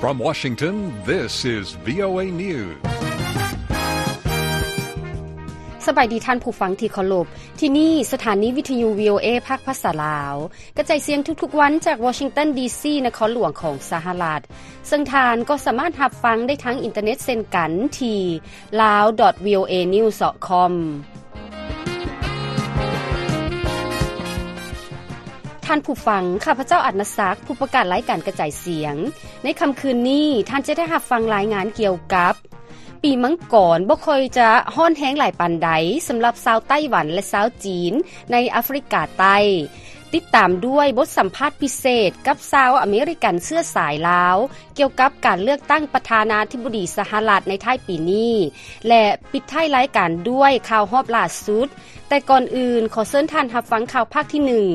From Washington, this is VOA News. ສະບາຍດີທ່ານຜູ້ຟັງທີ່ເຄົາລົບ. ທີ່ນີ້ສະຖານີວິທະຍຸ VOA ພາກພາສາລາວ ກະຈາຍສຽງທຸກໆວັນຈາກວໍຊິງຕັນ ດີຊີ ນະຄອນຫຼວງຂອງສະຫະລັດ. ເຊິ່ງທ່ານກໍສາມາດຮັບຟັງໄດ້ທາງອິນເຕີເນັດເຊັ່ນກັນທີ່ lawdotvoanews.com. ທ່ານຜູ້ຟັງ, ຂ້າພະເຈົ້າ ອານາສັກ, ຜູ້ປະກາດລາຍການກະຈາຍສຽງ. ໃນຄ່ຳຄືນນີ້, ທ່ານຈະໄດ້ຮັບຟັງລາຍງານກ່ຽວກັບ ປີມັງກອນບໍ່ຄ່ອຍຈະຮ້ອນແຮງຫຼາຍປານໃດສຳລັບຊາວໄຕ້ຫວັນ ແລະ ຊາວຈີນໃນອາຟຣິກາໃຕ້. ຕິດຕາມດ້ວຍບົດສຳພາດພິເສດກັບຊາວອາເມລິກັນເຊື້ອສາຍລາວ ກ່ຽວກັບການເລືອກຕັ້ງປະທານາທິບໍດີສະຫະລັດໃນທ້າຍປີນີ້ ແລະ ປິດທ້າຍລາຍການດ້ວຍຂ່າວຮອບລ່າສຸດ. ແຕ່ກ່ອນອື່ນ, ຂໍເຊີນທ່ານຮັບຟັງຂ່າວພາກທີໜຶ່ງ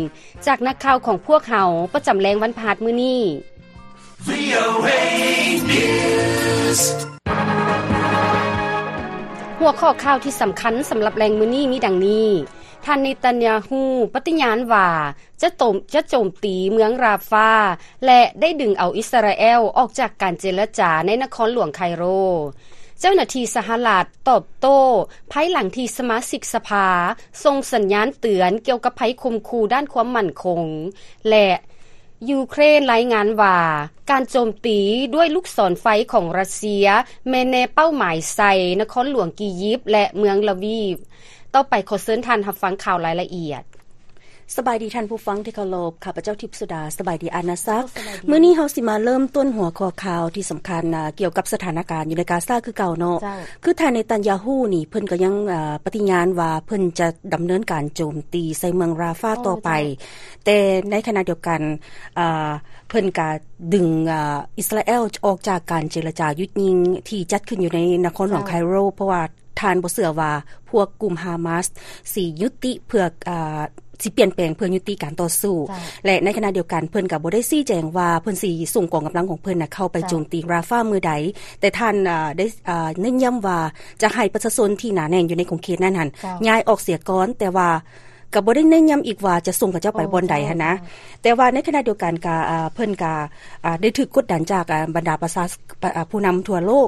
ຈາກນັກຂ່າວຂອງພວກເຮົາປະຈຳແລງວັນພະຫັດມື້ນີ້. VOA News. ຫົວຂໍ້ຂ່າວທີ່ສຳຄັນສຳລັບແລງມື້ນີ້ມີດັ່ງນີ້. ທ່ານເນຕັນຍາຮູ້ປະຕິຍານວ່າຈະໂຈມ, ຈະໂຈມຕີເມືອງຣາຟາ ແລະ ໄດ້ດຶງເອົາອິດສະຣາແອລອອກຈາກການເຈລະຈາໃນນະຄອນຫຼວງໄຄໂຣ. ເຈົ້າໜ້າທີ່ສະຫະລັດຕອບໂຕ້ພາຍຫຼັງທີ່ສະມາຊິກສະພາສົ່ງສັນຍານເຕືອນກ່ຽວກັບໄພຂົ່ມຂູ່ດ້ານຄວາມໝັ້ນຄົງ ແລະ ຢູເຄຣນລາຍງານວ່າ ການໂຈມຕີດ້ວຍລູກສອນໄຟຂອງຣັດເຊຍແມ່ນແນເປົ້າໝາຍໃສ່ນະຄອນຫຼວງກີຢິບ ແລະ ເມືອງລາວີບ. ຕໍ່ໄປຂໍເຊີນທ່ານຮັບຟັງຂ່າວລາຍລະອຽດ. ສະບາຍດີທ່ານຜູ້ຟັງທີ່ເຄົາລົບ, ຂ້າພະເຈົ້າທິບສຸດາ. ສະບາຍດີອານາສັກ. ມື້ນີ້ເຮົາຊິມາເລີ່ມຕົ້ນຫົວຂໍ້ຂ່າວທີ່ສຳຄັນ ອາ ກ່ຽວກັບສະຖານະການຢູ່ໃນກາຊາຄືເກົ່າເນາະ. ຄືທ່ານເນຕັນຍາຮູ້ນີ້ ເພິ່ນກໍຍັງ ອາ ປະຕິຍານວ່າເພິ່ນຈະດຳເນີນການໂຈມຕີໃສ່ເມືອງຣາຟາຕໍ່ໄປ. ແຕ່ໃນຂະນະດຽວກັນ ອາ ເພິ່ນກະດຶງ ອາ ອິດສະຣາແອລອອກຈາກການເຈລະຈາຢຸດຍິງທີ່ຈັດຂຶ້ນຢູ່ໃນນະຄອນຫຼວງໄຄໂຣ ເພາະວ່າທ່ານບໍ່ເຊື່ອວ່າພວກກຸ່ມຮາມາສຊິຍຸຕິເພື່ອ ອາ ຊິປ່ຽນແປງເພື່ອຍຸຕິການຕໍ່ສູ້ ແລະ ໃນຂະນະດຽວກັນເພິ່ນກະບໍ່ໄດ້ຊີ້ແຈງວ່າເພິ່ນຊິສົ່ງກອງກຳລັງຂອງເພິ່ນນະເຂົ້າໄປໂຈມຕີຣາຟາມື້ໃດ ແຕ່ທ່ານ ອາ ໄດ້ ອາ ເນັ້ນຢ້ຳວ່າຈະໃຫ້ປະຊາຊົນທີ່ໜາແໜ້ນຢູ່ໃນຂົງເຂດນັ້ນຫັ້ນຍ້າຍອອກເສຍກ່ອນ ແຕ່ວ່າ ກໍບໍ່ໄດ້ເນັ້ນຢ້ຳອີກວ່າຈະສົ່ງເຂົາເຈົ້າໄປບ່ອນໃດຫັ້ນນະ. ແຕ່ວ່າໃນຂະນະດຽວກັນກໍ ເພິ່ນກໍໄດ້ຖືກກົດດັນຈາກບັນດາປະຊາ ຜູ້ນຳທົ່ວໂລກ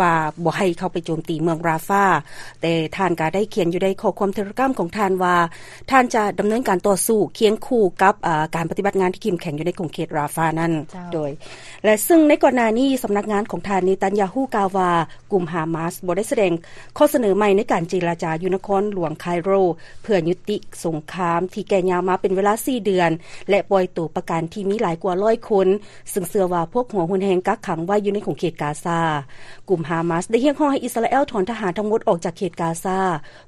ວ່າບໍ່ໃຫ້ເຂົ້າໄປໂຈມຕີເມືອງຣາຟາ. ແຕ່ທ່ານກໍໄດ້ຂຽນຢູ່ໃນຂໍ້ຄວາມເທເລກຣາມຂອງທ່ານວ່າ ທ່ານຈະດຳເນີນການຕໍ່ສູ້ຄຽງຄູ່ກັບ ການປະຕິບັດງານທີ່ເຂັ້ມແຂງຢູ່ໃນຂົງເຂດຣາຟານັ້ນ. ໂດຍ ແລະ ເຊິ່ງໃນກ່ອນໜ້ານີ້ ສຳນັກງານຂອງທ່ານເນຕັນຍາຮູ້ກ່າວວ່າ ກຸ່ມຮາມາສບໍ່ໄດ້ສະແດງຂໍ້ສະເໜີໃໝ່ໃນການເຈລະຈາຢູ່ນະຄອນຫຼວງໄຄໂຣ ເພື່ອຍຸຕິສົງຄາມທີ່ແກ່ຍາວມາເປັນເວລາສີ່ເດືອນ ແລະ ປ່ອຍໂຕປະກັນທີ່ມີຫຼາຍກວ່າຮ້ອຍຄົນ, ເຊິ່ງເຊື່ອວ່າພວກຫົວຮຸນແຮງກັກຂັງໄວ້ຢູ່ໃນຂົງເຂດກາຊາ. ກຸ່ມຮາມາສໄດ້ຮຽກຮ້ອງໃຫ້ອິດສະຣາແອລຖອນທະຫານທັງໝົດອອກຈາກເຂດກາຊາ,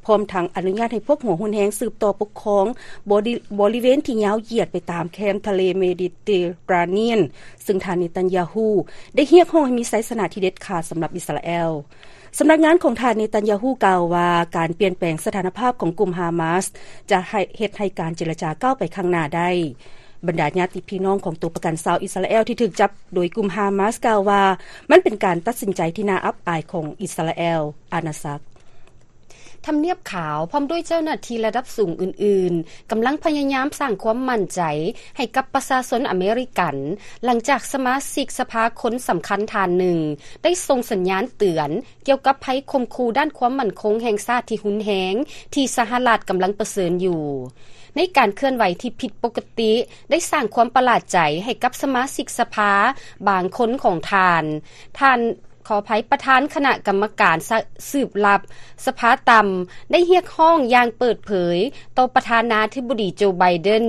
ພ້ອມທັງອະນຸຍາດໃຫ້ພວກຫົວຮຸນແຮງສືບຕໍ່ປົກຄອງບໍລິ ບໍລິເວນທີ່ຍາວຢຽດໄປຕາມແຄມທະເລເມດິເຕຣານຽນ, ເຊິ່ງທ່ານເນຕັນຍາຮູ້ໄດ້ຮຽກຮ້ອງໃຫ້ມີໄຊຊະນະທີ່ເດັດຂາດສຳລັບອິດສະຣາແອລ. ສຳນັກງານຂອງທ່ານເນຕັນຍາຮູ້ກ່າວວ່າ ການປ່ຽນແປງສະຖານະພາບຂອງກຸ່ມຮາມາສຈະໃຫ້ ເຮັດໃຫ້ການເຈລະຈາກ້າວໄປຂ້າງໜ້າໄດ້. ບັນດາຍາດຕິພີ່ນ້ອງຂອງຕົວປະກັນຊາວອິດສະຣາແອລທີ່ຖືກຈັບໂດຍກຸ່ມຮາມາສກ່າວວ່າ ມັນເປັນການຕັດສິນໃຈທີ່ໜ້າອັບອາຍຂອງອິດສະຣາແອລ. ອານາສັກ. ທຳນຽບຂາວ ພ້ອມດ້ວຍເຈົ້າໜ້າທີ່ລະດັບສູງອື່ນໆ ກຳລັງພະຍາຍາມສ້າງຄວາມໝັ້ນໃຈໃຫ້ກັບປະຊາຊົນອາເມລິກັນ ຫຼັງຈາກສະມາຊິກສະພາຄົນສຳຄັນທ່ານໜຶ່ງ ໄດ້ສົ່ງສັນຍານເຕືອນກ່ຽວກັບໄພຂົ່ມຂູ່ດ້ານຄວາມໝັ້ນຄົງແຫ່ງຊາດທີ່ຮຸນແຮງ ທີ່ສະຫະລັດກຳລັງປະເຊີນຢູ່. ໃນການເຄື່ອນໄຫວທີ່ຜິດປົກກະຕິ ໄດ້ສ້າງຄວາມປະຫຼາດໃຈໃຫ້ກັບສະມາຊິກສະພາບາງຄົນຂອງທ່ານ. ທ່ານ ຂໍອະໄພ, ປະທານຄະນະກຳມະການສະ ສືບລັບສະພາຕ່ຳ ໄດ້ຮຽກຮ້ອງຢ່າງເປີດເຜີຍຕໍ່ປະທານາທິບໍດີໂຈ ໄບເດັນ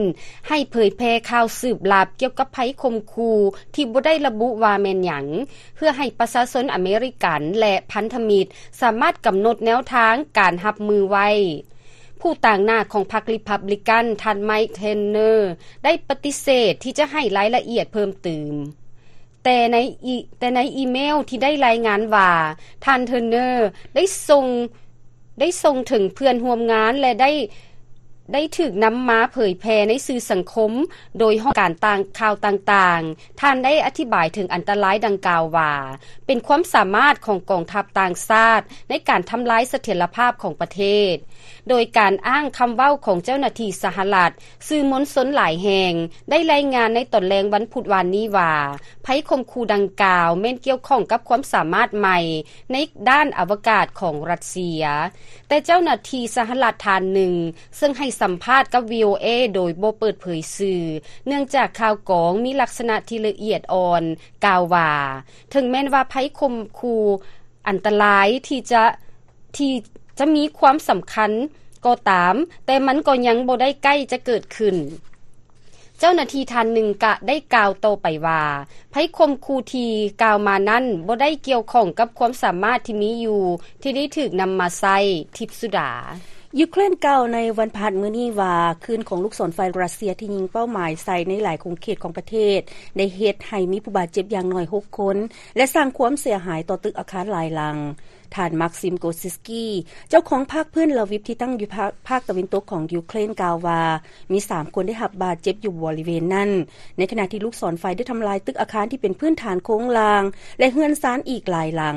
ໃຫ້ເຜີຍແຜ່ຂ່າວສືບລັບກ່ຽວກັບໄພຂົ່ມຂູ່ທີ່ບໍ່ໄດ້ລະບຸວ່າແມ່ນຫຍັງ ເພື່ອໃຫ້ປະຊາຊົນອາເມລິກັນ ແລະ ພັນທະມິດ ສາມາດກຳນົດແນວທາງການຮັບມືໄວ້. ຜູ້ຕາງໜ້າຂອງພັກຣີພັບບລິກັນ ທ່ານ ໄມຄ໌ ເທີນເນີ ໄດ້ປະຕິເສດທີ່ຈະໃຫ້ລາຍລະອຽດເພີ່ມເຕີມ. ແຕ່ໃນອີ ແຕ່ໃນອີເມວທີ່ໄດ້ລາຍງານວ່າ ທ່ານ ເທີນເນີ ໄດ້ສົ່ງ ໄດ້ສົ່ງເຖິງເພື່ອນຮ່ວມງານ ແລະ ໄດ້ ໄດ້ຖືກນຳມາເຜີຍແຜ່ໃນສື່ສັງຄົມໂດຍຫ້ອງການຕ່າງ ຂ່າວຕ່າງໆ. ທ່ານໄດ້ອະທິບາຍເຖິງອັນຕະລາຍດັ່ງກ່າວວ່າ ເປັນຄວາມສາມາດຂອງກອງທັບຕ່າງຊາດໃນການທຳລາຍສະຖຽນລະພາບຂອງປະເທດ, ໂດຍການອ້າງຄຳເວົ້າຂອງເຈົ້າໜ້າທີ່ສະຫະລັດ. ສື່ມວນຊົນຫຼາຍແຫ່ງໄດ້ລາຍງານໃນຕອນແລງວັນພຸດວານນີ້ວ່າ ໄພຂົ່ມຂູ່ດັ່ງກ່າວແມ່ນກ່ຽວຂ້ອງກັບຄວາມສາມາດໃໝ່ໃນດ້ານອະວະກາດຂອງຣັດເຊຍ. ແຕ່ເຈົ້າໜ້າທີ່ສະຫະລັດທ່ານໜຶ່ງ ເຊິ່ງໃຫ້ສຳພາດກັບ ວີໂອເອ ໂດຍບໍ່ເປີດເຜີຍຊື່ ເນື່ອງຈາກຂ່າວກອງມີລັກສະນະທີ່ລະອຽດອ່ອນ ກ່າວວ່າ ເຖິງແມ່ນວ່າໄພຂົ່ມຂູ່ອັນຕະລາຍທີ່ຈະ ທີ່ຈະມີຄວາມສຳຄັນກໍຕາມ, ແຕ່ມັນກໍຍັງບໍ່ໄດ້ໃກ້ຈະເກີດຂຶ້ນ. ເຈົ້າໜ້າທີ່ທ່ານໜຶ່ງກະໄດ້ກ່າວຕໍ່ໄປວ່າ ໄພຂົ່ມຂູ່ທີ່ກ່າວມານັ້ນບໍ່ໄດ້ກ່ຽວຂ້ອງກັບຄວາມສາມາດທີ່ມີຢູ່ທີ່ໄດ້ຖືກນຳມາໃຊ້. ທິບສຸດາ. ຢູເຄຣນກ່າວໃນວັນພະຫັດມື້ນີ້ວ່າ ຄື້ນຂອງລູກສອນໄຟຣັດເຊຍທີ່ຍິງເປົ້າໝາຍໃສ່ໃນຫຼາຍຂົງເຂດຂອງປະເທດ ໄດ້ເຮັດໃຫ້ມີຜູ້ບາດເຈັບຢ່າງໜ້ອຍຫົກຄົນ ແລະ ສ້າງຄວາມເສຍຫາຍຕໍ່ຕຶກອາຄານຫຼາຍຫຼັງ. ທ່ານ Maxim Gorsuchny ເຈົ້າຂອງພັກພື້ນລາວິບທີ່ຕັ້ງຢູ່ພາກ ພາກຕາເວັນຕົກຂອງຢູເຄຣນ ກ່າວວ່າ ມີສາມຄົນໄດ້ຮັບບາດເຈັບຢູ່ບໍລິເວນນັ້ນ, ໃນຂະນະທີ່ລູກສອນໄຟໄດ້ທຳລາຍຕຶກອາຄານທີ່ເປັນພື້ນຖານໂຄງລ່າງ ແລະ ເຮືອນຊານອີກຫຼາຍຫຼັງ.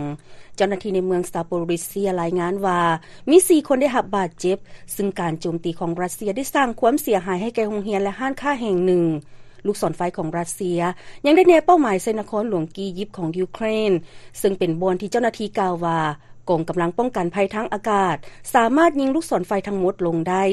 ເຈົ້າໜ້າທີ່ໃນເມືອງ Zaporizhzhia ລາຍງານວ່າ ມີສີ່ຄົນໄດ້ຮັບບາດເຈັບ, ຊຶ່ງການໂຈມຕີຂອງຣັດເຊຍໄດ້ສ້າງຄວາມເສຍຫາຍໃຫ້ແກ່ໂຮງຮຽນ ແລະ ຮ້ານຄ້າແຫ່ງໜຶ່ງ. ລູກສອນໄຟຂອງຣັດເຊຍຍັງໄດ້ແນເປົ້າໝາຍໃສ່ນະຄອນຫຼວງກີຢິບຂອງຢູເຄຣນ, ເຊິ່ງເປັນບ່ອນທີ່ເຈົ້າໜ້າທີ່ກ່າວວ່າ ກອງກຳລັງປ້ອງກັນໄພທາງອາກາດສາມາດຍິງລູກສອນໄຟທັງໝົດລົງໄດ້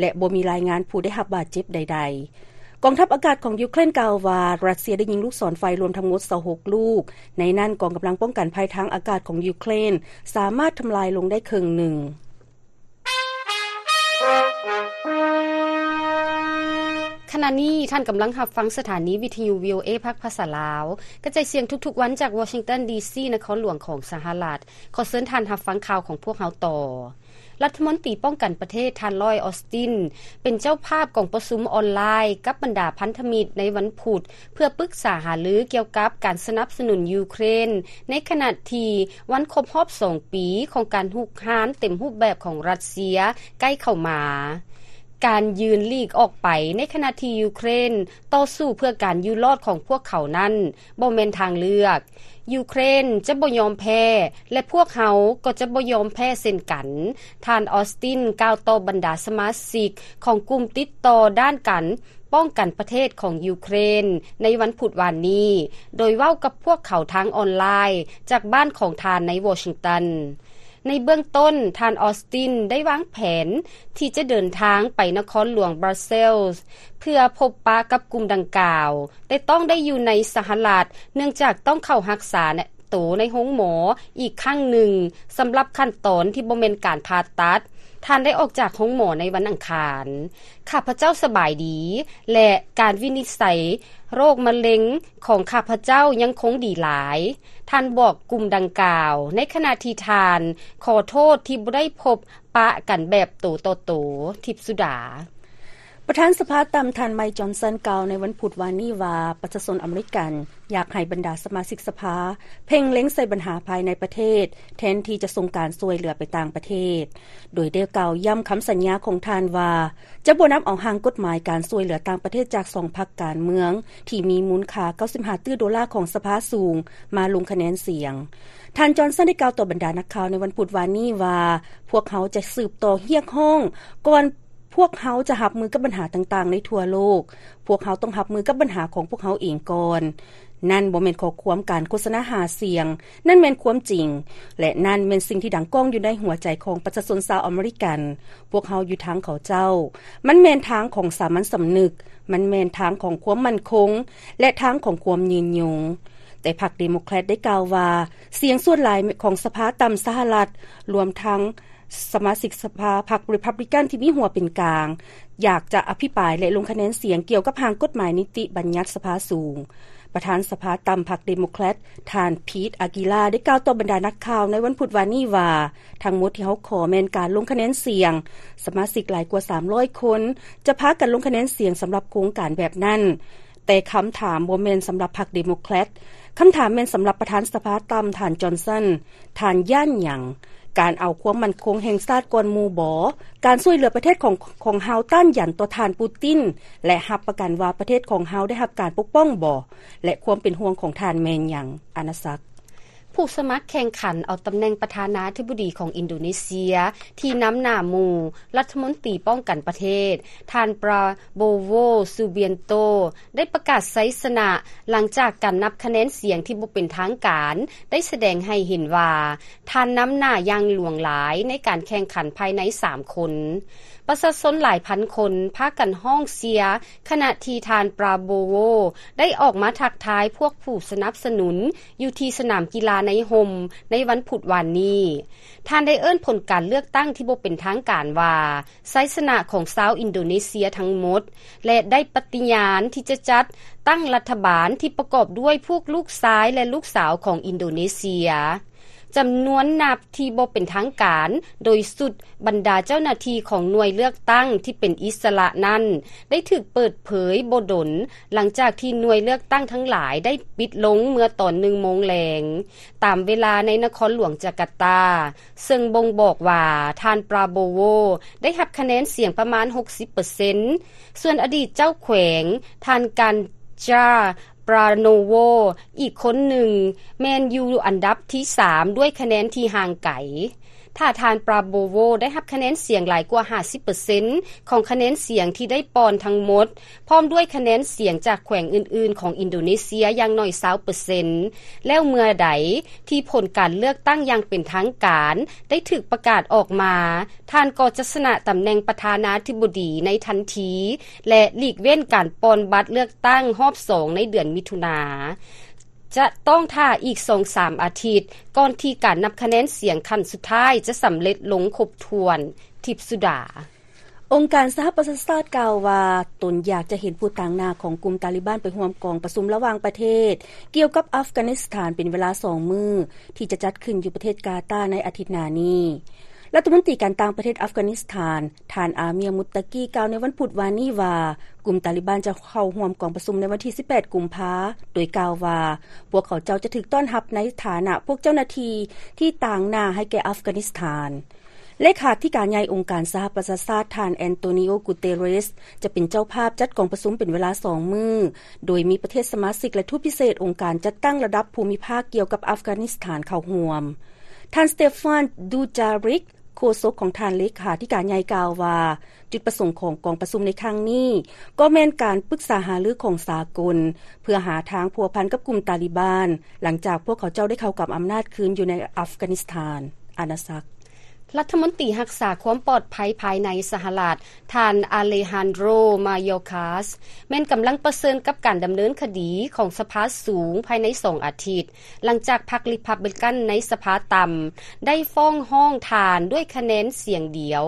ແລະ ບໍ່ມີລາຍງານຜູ້ໄດ້ຮັບບາດເຈັບໃດໆ. ກອງທັບອາກາດຂອງຢູເຄຣນກ່າວວ່າ ຣັດເຊຍໄດ້ຍິງລູກສອນໄຟລວມທັງໝົດຊາວຫົກລູກ, ໃນນັ້ນກອງກຳລັງປ້ອງກັນໄພທາງອາກາດຂອງຢູເຄຣນສາມາດທຳລາຍລົງໄດ້ເຄິ່ງໜຶ່ງ. ຂະນະນີ້ທ່ານກຳລັງຮັບຟັງສະຖານີວິທະຍຸ ວີໂອເອ ພາກພາສາລາວ ກະຈາຍສຽງທຸກໆວັນຈາກວໍຊິງຕັນ ດີຊີ ນະຄອນຫຼວງຂອງສະຫະລັດ. ຂໍເຊີນທ່ານຮັບຟັງຂ່າວຂອງພວກເຮົາຕໍ່. ລັດຖະມົນຕີປ້ອງກັນປະເທດ ທ່ານ ລອຍ ອອສຕິນ ເປັນເຈົ້າພາບກອງປະຊຸມອອນລາຍກັບບັນດາພັນທະມິດໃນວັນພຸດ ເພື່ອປຶກສາຫາລືກ່ຽວກັບການສະໜັບສະໜູນຢູເຄຣນ ໃນຂະນະທີ່ວັນຄົບຮອບສອງປີຂອງການຮຸກຮານເຕັມຮູບແບບຂອງຣັດເຊຍໃກ້ເຂົ້າມາ. ການຢືນຫຼີກອອກໄປໃນຂະນະທີ່ຢູເຄຣນຕໍ່ສູ້ເພື່ອການຢູ່ລອດຂອງພວກເຂົານັ້ນ ບໍ່ແມ່ນທາງເລືອກ. ຢູເຄຣນຈະບໍ່ຍອມແພ້ ແລະ ພວກເຮົາກໍຈະບໍ່ຍອມແພ້ເຊັ່ນກັນ, ທ່ານ ອອສຕິນ ກ່າວຕໍ່ບັນດາສະມາຊິກຂອງກຸ່ມຕິດຕໍ່ດ້ານການປ້ອງກັນປະເທດຂອງຢູເຄຣນໃນວັນພຸດວານນີ້, ໂດຍເວົ້າກັບພວກເຂົາທາງອອນລາຍຈາກບ້ານຂອງທ່ານໃນວໍຊິງຕັນ. ໃນເບື້ອງຕົ້ນ, ທ່ານ ອອສຕິນ ໄດ້ວາງແຜນທີ່ຈະເດີນທາງໄປນະຄອນຫຼວງບຣັສເຊລ ເພື່ອພົບປະກັບກຸ່ມດັ່ງກ່າວ, ແຕ່ຕ້ອງໄດ້ຢູ່ໃນສະຫະລັດ ເນື່ອງຈາກຕ້ອງເຂົ້າຮັກສາໂຕໃນໂຮງໝໍອີກຄັ້ງໜຶ່ງ ສຳລັບຂັ້ນຕອນທີ່ບໍ່ແມ່ນການຜ່າຕັດ. ທ່ານໄດ້ອອກຈາກໂຮງໝໍໃນວັນອັງຄານ. ຂ້າພະເຈົ້າສະບາຍດີ ແລະ ການວິນິດໄສໂລກມະເລັງຂອງຂ້າພະເຈົ້າຍັງຄົງດີຫຼາຍ, ທ່ານບອກກຸ່ມດັ່ງກ່າວ ໃນຂະນະທີ່ທ່ານຂໍໂທດທີ່ບໍ່ໄດ້ພົບປະກັນແບບໂຕຕໍ່ໂຕ. ທິບສຸດາ. ປະທານສະພາຕ່ຳ ທ່ານ ໄມ ຈອນສັນ ກ່າວໃນວັນພຸດວານນີ້ວ່າ ປະຊາຊົນອາເມລິກັນຢາກໃຫ້ບັນດາສະມາຊິກສະພາເພັ່ງເລັງໃສ່ບັນຫາພາຍໃນປະເທດ ແທນທີ່ຈະສົ່ງການຊ່ວຍເຫຼືອໄປຕ່າງປະເທດ, ໂດຍໄດ້ກ່າວຢ້ຳຄຳສັນຍາຂອງທ່ານວ່າ ຈະບໍ່ນຳເອົາຮ່າງກົດໝາຍການຊ່ວຍເຫຼືອຕ່າງປະເທດຈາກສອງພັກການເມືອງທີ່ມີມູນຄ່າເກົ້າສິບຫ້າຕື້ໂດລາຂອງສະພາສູງມາລົງຄະແນນສຽງ. ທ່ານ ຈອນສັນ ໄດ້ກ່າວຕໍ່ບັນດານັກຂ່າວໃນວັນພຸດວານນີ້ວ່າ ພວກເຮົາຈະສືບຕໍ່ຮຽກຮ້ອງກ່ອນ ພວກເຮົາຈະຮັບມືກັບບັນຫາຕ່າງໆໃນທົ່ວໂລກ. ພວກເຮົາຕ້ອງຮັບມືກັບບັນຫາຂອງພວກເຮົາເອງກ່ອນ. ນັ້ນບໍ່ແມ່ນຂໍ້ຄວາມການໂຄສະນາຫາສຽງ, ນັ້ນແມ່ນຄວາມຈິງ ແລະ ນັ້ນແມ່ນສິ່ງທີ່ດັງກ້ອງຢູ່ໃນຫົວໃຈຂອງປະຊາຊົນຊາວອາເມລິກັນ. ພວກເຮົາຢູ່ທາງເຂົາເຈົ້າ. ມັນແມ່ນທາງຂອງສາມັນສຳນຶກ, ມັນແມ່ນທາງຂອງຄວາມໝັ້ນຄົງ ແລະ ທາງຂອງຄວາມຍືນຍົງ. ແຕ່ພັກເດໂມແຄຣດໄດ້ກ່າວວ່າ ສຽງສ່ວນຫຼາຍຂອງສະພາຕ່ຳສະຫະລັດ, ລວມທັງ ສະມາຊິກສະພາພັກຣີພັບລິກັນທີ່ມີຫົວເປັນກາງ ຢາກຈະອະພິປາຍ ແລະ ລົງຄະແນນສຽງກ່ຽວກັບຮ່າງກົດໝາຍນິຕິບັນຍັດສະພາສູງ. ປະທານສະພາຕ່ຳພັກເດໂມແຄຣດ ທ່ານ ພີດ ອາກີລາ ໄດ້ກ່າວຕໍ່ບັນດານັກຂ່າວໃນວັນພຸດວານນີ້ວ່າ ທັງໝົດທີ່ເຮົາຂໍແມ່ນການລົງຄະແນນສຽງ. ສະມາຊິກຫຼາຍກວ່າສາມຮ້ອຍຄົນຈະພາກັນລົງຄະແນນສຽງສຳລັບໂຄງການແບບນັ້ນ. ແຕ່ຄຳຖາມບໍ່ແມ່ນສຳລັບພັກເດໂມແຄຣດ. ຄຳຖາມແມ່ນສຳລັບປະທານສະພາຕ່ຳ ທ່ານ ຈອນສັນ. ທ່ານຢ້ານຫຍັງ? ການເອົາຄວາມໝັ້ນຄົງແຫ່ງຊາດກ່ອນໝູ່ບໍ? ການຊ່ວຍເຫຼືອປະເທດຂອງ ຂອງເຮົາຕ້ານຢັນຕໍ່ທ່ານປູຕິນ ແລະ ຮັບປະກັນວ່າປະເທດຂອງເຮົາໄດ້ຮັບການປົກປ້ອງບໍ? ແລະ ຄວາມເປັນຫ່ວງຂອງທ່ານແມ່ນຫຍັງ? ອານາສັກ. ຜູ້ສະໝັກແຂ່ງຂັນເອົາຕຳແໜ່ງປະທານາທິບໍດີຂອງອິນໂດເນເຊຍ ທີ່ນຳໜ້າໝູ່ ລັດຖະມົນຕີປ້ອງກັນປະເທດ ທ່ານ ປາໂບໂວ ຊູບຽນໂຕ ໄດ້ປະກາດໄຊຊະນະ ຫຼັງຈາກການນັບຄະແນນສຽງທີ່ບໍ່ເປັນທາງການ ໄດ້ສະແດງໃຫ້ເຫັນວ່າ ທ່ານນຳໜ້າຢ່າງຫຼວງຫຼາຍໃນການແຂ່ງຂັນພາຍໃນສາມຄົນ. ປະຊາຊົນຫຼາຍພັນຄົນພາກັນຮ້ອງເຊຍ ຂະນະທີ່ທ່ານ ປາໂບໂວ ໄດ້ອອກມາທັກທາຍພວກຜູ້ສະໜັບສະໜູນຢູ່ທີ່ສະໜາມກິລາໃນຮົ່ມໃນວັນພຸດວານນີ້. ທ່ານໄດ້ເອີ້ນຜົນການເລືອກຕັ້ງທີ່ບໍ່ເປັນທາງການວ່າ ໄຊຊະນະຂອງຊາວອິນໂດເນເຊຍທັງໝົດ ແລະ ໄດ້ປະຕິຍານທີ່ຈະຈັດຕັ້ງລັດຖະບານທີ່ປະກອບດ້ວຍພວກລູກຊາຍ ແລະ ລູກສາວຂອງອິນໂດເນເຊຍ. ຈຳນວນນັບທີ່ບໍ່ເປັນທາງການ ໂດຍຊຸດບັນດາເຈົ້າໜ້າທີ່ຂອງໜ່ວຍເລືອກຕັ້ງທີ່ເປັນອິດສະຫຼະນັ້ນ ໄດ້ຖືກເປີດເຜີຍບໍ່ດົນ ຫຼັງຈາກທີ່ໜ່ວຍເລືອກຕັ້ງທັງຫຼາຍໄດ້ປິດລົງເມື່ອຕອນໜຶ່ງໂມງແລງ ຕາມເວລາໃນນະຄອນຫຼວງຈາກາຕາ, ເຊິ່ງບົ່ງບອກວ່າທ່ານ ປາໂບໂວ ໄດ້ຮັບຄະແນນສຽງປະມານຫົກສິບເປີເຊັນ, ສ່ວນອະດີດເຈົ້າແຂວງ ທ່ານ ການຈາ ປາໂນໂວ ອີກຄົນໜຶ່ງ ແມ່ນຢູ່ອັນດັບທີສາມດ້ວຍຄະແນນທີ່ຫ່າງໄກ. ຖ້າທ່ານ ປາໂບໂວ ໄດ້ຮັບຄະແນນສຽງຫຼາຍກວ່າຫ້າສິບເປີເຊັນຂອງຄະແນນສຽງທີ່ໄດ້ປ່ອນທັງໝົດ, ພ້ອມດ້ວຍຄະແນນສຽງຈາກແຂວງອື່ນໆຂອງອິນໂດເນເຊຍຢ່າງໜ້ອຍຊາວເປີເຊັນ ແລ້ວເມື່ອໃດທີ່ຜົນການເລືອກຕັ້ງຢ່າງເປັນທາງການໄດ້ຖືກປະກາດອອກມາ, ທ່ານກໍຈະຊະນະຕຳແໜ່ງປະທານາທິບໍດີໃນທັນທີ ແລະ ຫຼີກເວັ້ນການປ່ອນບັດເລືອກຕັ້ງຮອບສອງໃນເດືອນມິຖຸນາ. ຈະຕ້ອງຖ້າອີກສອງສາມອາທິດ ກ່ອນທີ່ການນັບຄະແນນສຽງຂັ້ນສຸດທ້າຍຈະສຳເລັດລົງຄົບຖ້ວນ. ທິບສຸດາ. ອົງການສະຫະປະຊາຊາດກ່າວວ່າ ຕົນຢາກຈະເຫັນຜູ້ຕາງໜ້າຂອງກຸ່ມຕາລີບານໄປຮ່ວມກອງປະຊຸມລະຫວ່າງປະເທດ ກ່ຽວກັບອັຟການິສຖານເປັນເວລາສອງມື້ ທີ່ຈະຈັດຂຶ້ນຢູ່ປະເທດກາຕາໃນອາທິດໜ້ານີ້. ລັດຖະມົນຕີການຕ່າງປະເທດອັຟການິສຖານ ທ່ານ ອາເມຍ ມຸດຕະກີ ກ່າວໃນວັນພຸດວານນີ້ວ່າ ກຸ່ມຕາລີບານຈະເຂົ້າຮ່ວມກອງປະຊຸມໃນວັນທີສິບແປດ ກຸມພາ ໂດຍກ່າວວ່າ ພວກເຂົາເຈົ້າຈະຖືກຕ້ອນຮັບໃນຖານະພວກເຈົ້າໜ້າທີ່ທີ່ຕາງໜ້າໃຫ້ແກ່ອັຟການິສຖານ. ເລຂາທິການໃຫຍ່ອົງການສະຫະປະຊາຊາດ ທ່ານ ແອນໂຕນິໂອ ກູເຕເຣສ ຈະເປັນເຈົ້າພາບຈັດກອງປະຊຸມເປັນເວລາສອງມື້, ໂດຍມີປະເທດສະມາຊິກ ແລະ ທູດພິເສດອົງການຈັດຕັ້ງລະດັບພູມິພາກກ່ຽວກັບອັຟການິສຖານເຂົ້າຮ່ວມ. ທ່ານ ສະເຕຟານ ດູຈາຣິກ ໂຄສົກຂອງທ່ານເລຂາທິການໃຫຍ່ກ່າວວ່າ ຈຸດປະສົງຂອງກອງປະຊຸມໃນຄັ້ງນີ້ ກໍແມ່ນການປຶກສາຫາລືຂອງສາກົນ ເພື່ອຫາທາງພົວພັນກັບກຸ່ມຕາລີບານ ຫຼັງຈາກພວກເຂົາເຈົ້າໄດ້ເຂົ້າກຳອຳນາດຄືນຢູ່ໃນອັຟການິສຖານ. ອານາສັກ. ລັດຖະມົນຕີຮັກສາຄວາມປອດໄພພາຍໃນສະຫະລັດ ທ່ານ ອາເລຮານໂດຣ ມາໂຍຄາສ ແມ່ນກຳລັງປະເຊີນກັບການດຳເນີນຄະດີຂອງສະພາສູງພາຍໃນສອງອາທິດ ຫຼັງຈາກພັກຣີພັບບລິກັນໃນສະພາຕ່ຳ ໄດ້ຟ້ອງຮ້ອງທ່ານດ້ວຍຄະແນນສຽງດຽວ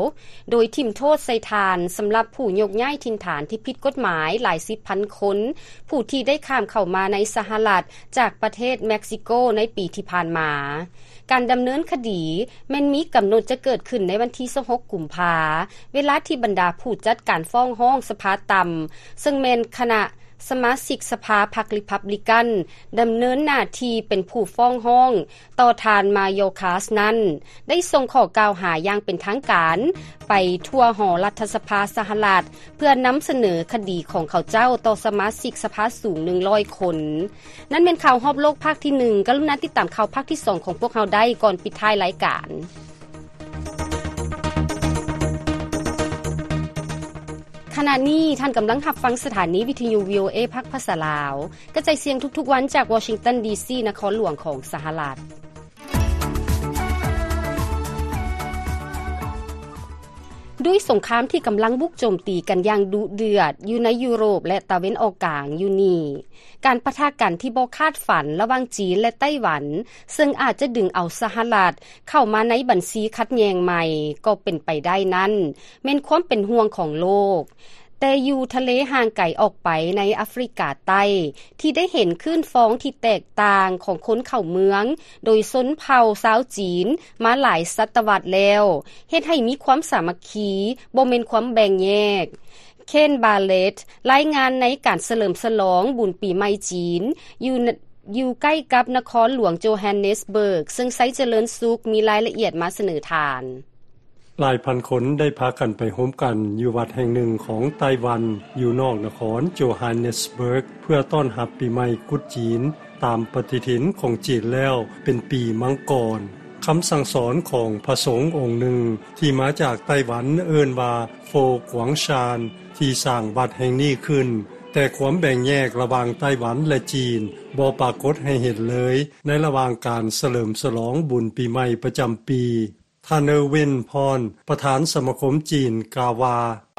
ໂດຍຖິ້ມໂທດໃສ່ທ່ານສຳລັບຜູ້ຍົກຍ້າຍຖິ່ນຖານທີ່ຜິດກົດໝາຍຫຼາຍສິບພັນຄົນ ຜູ້ທີ່ໄດ້ຂ້າມເຂົ້າມາໃນສະຫະລັດຈາກປະເທດເມັກຊິໂກໃນປີທີ່ຜ່ານມາ. ການດຳເນີນຄະດີແມ່ນມີກຳນົດຈະເກີດຂຶ້ນໃນວັນທີຊາວຫົກ ກຸມພາ, ເວລາທີ່ບັນດາຜູ້ຈັດການຟ້ອງຮ້ອງສະພາຕ່ຳ ເຊິ່ງແມ່ນຄະນະສະມາຊິກສະພາພັກຣີພັບບລິກັນ ດຳເນີນໜ້າທີ່ເປັນຜູ້ຟ້ອງຮ້ອງຕໍ່ທ່ານມາໂຍຄາສນັ້ນ ໄດ້ສົ່ງຂໍ້ກ່າວຫາຢ່າງເປັນທາງການໄປທົ່ວຫໍລັດຖະສະພາສະຫະລັດ ເພື່ອນຳສະເໜີຄະດີຂອງເຂົາເຈົ້າຕໍ່ສະມາຊິກສະພາສູງໜຶ່ງຮ້ອຍຄົນ. ນັ້ນແມ່ນຂ່າວຮອບໂລກພາກທີໜຶ່ງ. ກະລຸນາຕິດຕາມຂ່າວພາກທີສອງຂອງພວກເຮົາໄດ້ກ່ອນປິດທ້າຍລາຍການ. ຂະນະນີ້ທ່ານກຳລັງຮັບຟັງສະຖານີວິທະຍຸ ວີໂອເອ ພາກພາສາລາວ ກະຈາຍສຽງທຸກໆວັນຈາກວໍຊິງຕັນ ດີຊີ ນະຄອນຫຼວງຂອງສະຫະລັດ. ດ້ວຍສົງຄາມທີ່ກຳລັງບຸກໂຈມຕີກັນຢ່າງດຸເດືອດຢູ່ໃນຢູໂຣບ ແລະ ຕາເວັນອອກກາງຢູ່ນີ້, ການປະທະກັນທີ່ບໍ່ຄາດຝັນລະຫວ່າງຈີນ ແລະ ໄຕ້ຫວັນ ເຊິ່ງອາດຈະດຶງເອົາສະຫະລັດເຂົ້າມາໃນບັນຊີຂັດແຍ່ງໃໝ່ກໍເປັນໄປໄດ້ນັ້ນ ແມ່ນຄວາມເປັນຫ່ວງຂອງໂລກ. ແຕ່ຢູ່ທະເລຫ່າງໄກອອກໄປໃນອາຟຣິກາໃຕ້ ທີ່ໄດ້ເຫັນຄື້ນຟອງທີ່ແຕກຕ່າງຂອງຄົນເຂົ້າເມືອງ ໂດຍຊົນເຜົ່າຊາວຈີນມາຫຼາຍສະຕະວັດແລ້ວ ເຮັດໃຫ້ມີຄວາມສາມັກຄີ ບໍ່ແມ່ນຄວາມແບ່ງແຍກ. ເຄນ ບາເລັດ ລາຍງານໃນການສະເຫຼີມສະຫຼອງບຸນປີໃໝ່ຈີນ ຢູ່ ຢູ່ໃກ້ກັບນະຄອນຫຼວງໂຈຮານເນສເບີກ ເຊິ່ງໄຊຈະເລີນສຸກມີລາຍລະອຽດມາສະເໜີທ່ານ. ຫຼາຍພັນຄົນໄດ້ພາກັນໄປໂຮມກັນຢູ່ວັດແຫ່ງໜຶ່ງຂອງໄຕ້ຫວັນ ຢູ່ນອກນະຄອນໂຈຮານເນສເບີກ ເພື່ອຕ້ອນຮັບປີໃໝ່ກຸດຈີນ ຕາມປະຕິທິນຂອງຈີນແລ້ວເປັນປີມັງກອນ. ຄຳສັ່ງສອນຂອງພະສົງອົງໜຶ່ງທີ່ມາຈາກໄຕ້ຫວັນເອີ້ນວ່າ ໂຟກວາງຊານ ທີ່ສ້າງວັດແຫ່ງນີ້ຂຶ້ນ, ແຕ່ຄວາມແບ່ງແຍກລະຫວ່າງໄຕ້ຫວັນ ແລະ ຈີນບໍ່ປາກົດໃຫ້ເຫັນເລີຍ ໃນລະຫວ່າງການສະເຫຼີມສະຫຼອງບຸນປີໃໝ່ປະຈຳປີ. ທ່ານ ເນີວິນ ພອນ ປະທານສະມາຄົມຈີນ ກ່າວວ່າ,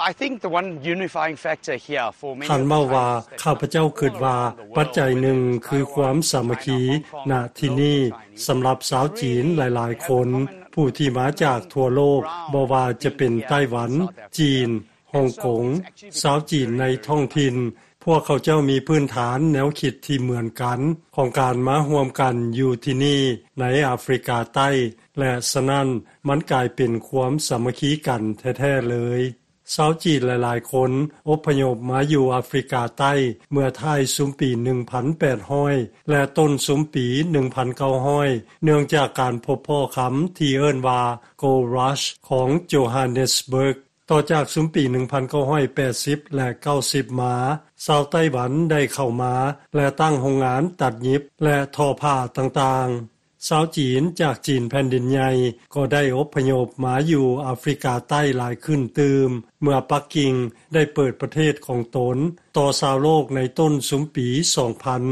I think the one unifying factor here for many ທ່ານເວົ້າວ່າ, ຂ້າພະເຈົ້າຄິດວ່າປັດໄຈໜຶ່ງຄືຄວາມສາມັກຄີ ນະທີ່ນີ້ ສຳລັບຊາວຈີນຫຼາຍໆຄົນ ຜູ້ທີ່ມາຈາກທົ່ວໂລກ, ບໍ່ວ່າຈະເປັນໄຕ້ຫວັນ, ຈີນ, ຮົງກົງ, ຊາວຈີນໃນທ້ອງຖິ່ນ, ພວກເຂົາເຈົ້າມີພື້ນຖານແນວຄິດທີ່ເໝືອນກັນ ຂອງການມາຮ່ວມກັນຢູ່ທີ່ນີ້ໃນອາຟຣິກາໃຕ້ ແລະ ສະນັ້ນ ມັນກາຍເປັນຄວາມສາມັກຄີກັນແທ້ໆເລີຍ. ຊາວຈີນຫຼາຍໆຄົນອົບພະຍົບມາຢູ່ອາຟຣິກາໃຕ້ເມື່ອທ້າຍຊຸມປີໜຶ່ງພັນແປດຮ້ອຍ ແລະ ຕົ້ນຊຸມປີໜຶ່ງພັນເກົ້າຮ້ອຍ ເນື່ອງຈາກການພົບພໍ້ຄຳທີ່ເອີ້ນວ່າ Gold Rush ຂອງໂຈຮານເນສເບີກ. ຕໍ່ຈາກຊຸມປີໜຶ່ງພັນເກົ້າຮ້ອຍແປດສິບ ແລະ ເກົ້າສິບມາ, ຊາວໄຕ້ຫວັນໄດ້ເຂົ້າມາ ແລະ ຕັ້ງໂຮງງານຕັດຫຍິບ ແລະ ທໍ້ຜ້າຕ່າງໆ. ຊາວຈີນຈາກຈີນແຜ່ນດິນໃຫຍ່ກໍໄດ້ອົບພະຍົບມາຢູ່ອາຟຣິກາໃຕ້ຫຼາຍຂຶ້ນຕື່ມ ເມື່ອປັກກິ່ງໄດ້ເປີດປະເທດຂອງຕົນຕໍ່ຊາວໂລກໃນຕົ້ນຊຸມປີສອງພັນ.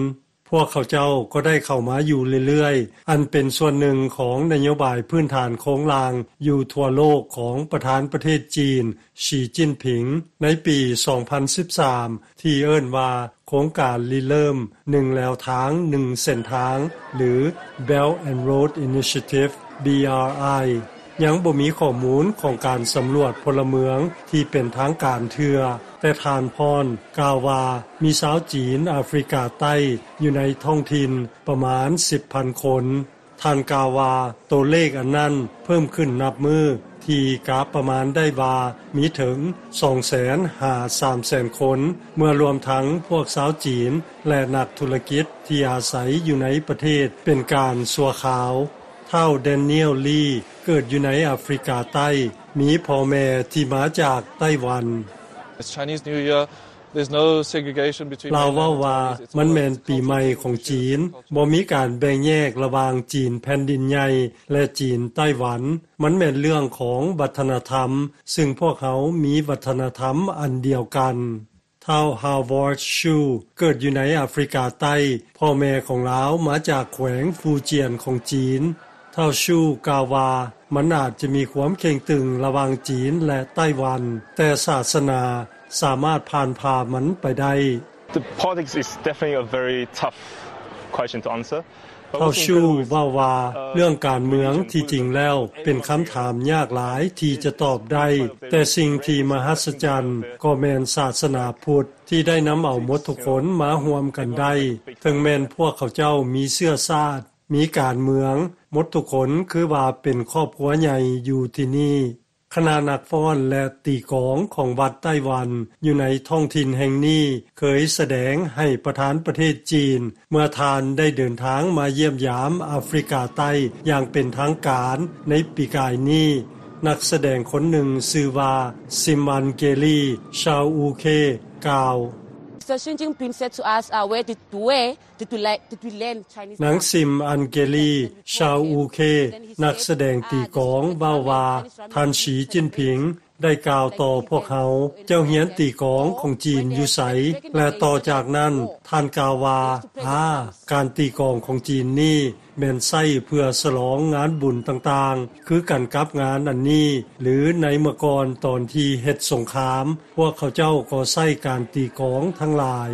ພວກເຂົາເຈົ້າກໍໄດ້ເຂົ້າມາຢູ່ເລື້ອຍໆ, ອັນເປັນສ່ວນໜຶ່ງຂອງນະໂຍບາຍພື້ນຖານໂຄງລ່າງຢູ່ທົ່ວໂລກຂອງປະທານປະເທດຈີນ ສີຈິ້ນຜິງ ໃນປີສອງພັນສິບສາມ ທີ່ເອີ້ນວ່າໂຄງການລິເລີ່ມໜຶ່ງແລວທາງໜຶ່ງເສັ້ນທາງ ຫຼື Belt and Road Initiative, B R I. ຍັງບໍ່ມີຂໍ້ມູນຂອງການສຳຫຼວດພົນລະເມືອງທີ່ເປັນທາງການເທື່ອ, ແຕ່ທ່ານພອນກ່າວວ່າມີຊາວຈີນອາຟຣິກາໃຕ້ຢູ່ໃນທ້ອງຖິ່ນປະມານສິບພັນຄົນ. ທ່ານກ່າວວ່າ ໂຕເລກອັນນັ້ນເພີ່ມຂຶ້ນນັບມື້ ທີ່ກະປະມານໄດ້ວ່າມີເຖິງສອງແສນຫາສາມແສນຄົນ ເມື່ອລວມທັງພວກຊາວຈີນ ແລະ ນັກທຸລະກິດທີ່ອາໄສຢູ່ໃນປະເທດເປັນການຊົ່ວຄາວ. ທ້າວ Daniel Lee ເກີດຢູ່ໃນອາຟຣິກາໃຕ້, ມີພໍ່ແມ່ທີ່ມາຈາກໄຕ້ຫວັນ. It's Chinese New Year. There's no segregation between ລາວເວົ້າວ່າ ມັນແມ່ນປີໃໝ່ຂອງຈີນ, ບໍ່ມີການແບ່ງແຍກລະຫວ່າງຈີນແຜ່ນດິນໃຫຍ່ ແລະ ຈີນໄຕ້ຫວັນ. ມັນແມ່ນເລື່ອງຂອງວັດທະນະທຳ, ຊຶ່ງພວກເຮົາມີວັດທະນະທຳອັນດຽວກັນ. ທ້າວ Howard Shu ເກີດຢູ່ໃນອາຟຣິກາໃຕ້, ພໍ່ແມ່ຂອງລາວມາຈາກແຂວງຟູຈຽນຂອງຈີນ. ທ້າວ Shu ກ່າວວ່າ ມັນອາດຈະມີຄວາມເຄັ່ງຕຶງລະຫວ່າງຈີນ ແລະ ໄຕ້ຫວັນ, ແຕ່ສາສະໜາສາມາດຜ່ານຜ່າມັນໄປໄດ້. The politics is definitely a very tough question to answer. ທ້າວ Shu ເວົ້າວ່າ ເລື່ອງການເມືອງທີ່ຈິງແລ້ວເປັນຄຳຖາມຍາກຫຼາຍທີ່ຈະຕອບໄດ້, ແຕ່ສິ່ງທີ່ມະຫັດສະຈັນກໍແມ່ນສາສະໜາພຸດທີ່ໄດ້ນຳເອົາໝົດທຸກຄົນມາຮ່ວມກັນໄດ້, ເຖິງແມ່ນພວກເຂົາເຈົ້າມີເຊື້ອຊາດ, ມີການເມືອງ, ໝົດທຸກຄົນຄືວ່າເປັນຄອບຄົວໃຫຍ່ຢູ່ທີ່ນີ້. ຄະນະນັກຟ້ອນ ແລະ ຕີກອງຂອງວັດໄຕ້ຫວັນຢູ່ໃນທ້ອງຖິ່ນແຫ່ງນີ້ ເຄີຍສະແດງໃຫ້ປະທານປະເທດຈີນ ເມື່ອທ່ານໄດ້ເດີນທາງມາຢ້ຽມຢາມອາຟຣິກາໃຕ້ຢ່າງເປັນທາງການໃນປີກາຍນີ້. ນັກສະແດງຄົນໜຶ່ງຊື່ວ່າ Simangali Chowukhe ກ່າວ. The Xi Jinping said to us, uh, where did, where did we le-, did we learn Chinese ນາງ dance? ຊິມ ອັນເກລີ ຊາວອູເຄ ນັກສະແດງຕີກອງ ເວົ້າວ່າ ທ່ານ ສີ ຈິ້ນຜິງ ໄດ້ກ່າວຕໍ່ພວກເຮົາ, ເຈົ້າຮຽນຕີກອງຂອງຈີນຢູ່ໃສ? ແລະ ຕໍ່ຈາກນັ້ນ ທ່ານກ່າວວ່າ, ອາ, ການຕີກອງຂອງຈີນນີ້ແມ່ນໃຊ້ເພື່ອສະຫຼອງງານບຸນຕ່າງໆ, ຄືກັນກັບງານອັນນີ້, ຫຼື ໃນເມື່ອກ່ອນຕອນທີ່ເຮັດສົງຄາມ, ພວກເຂົາເຈົ້າກໍໃຊ້ການຕີກອງທັງຫຼາຍ.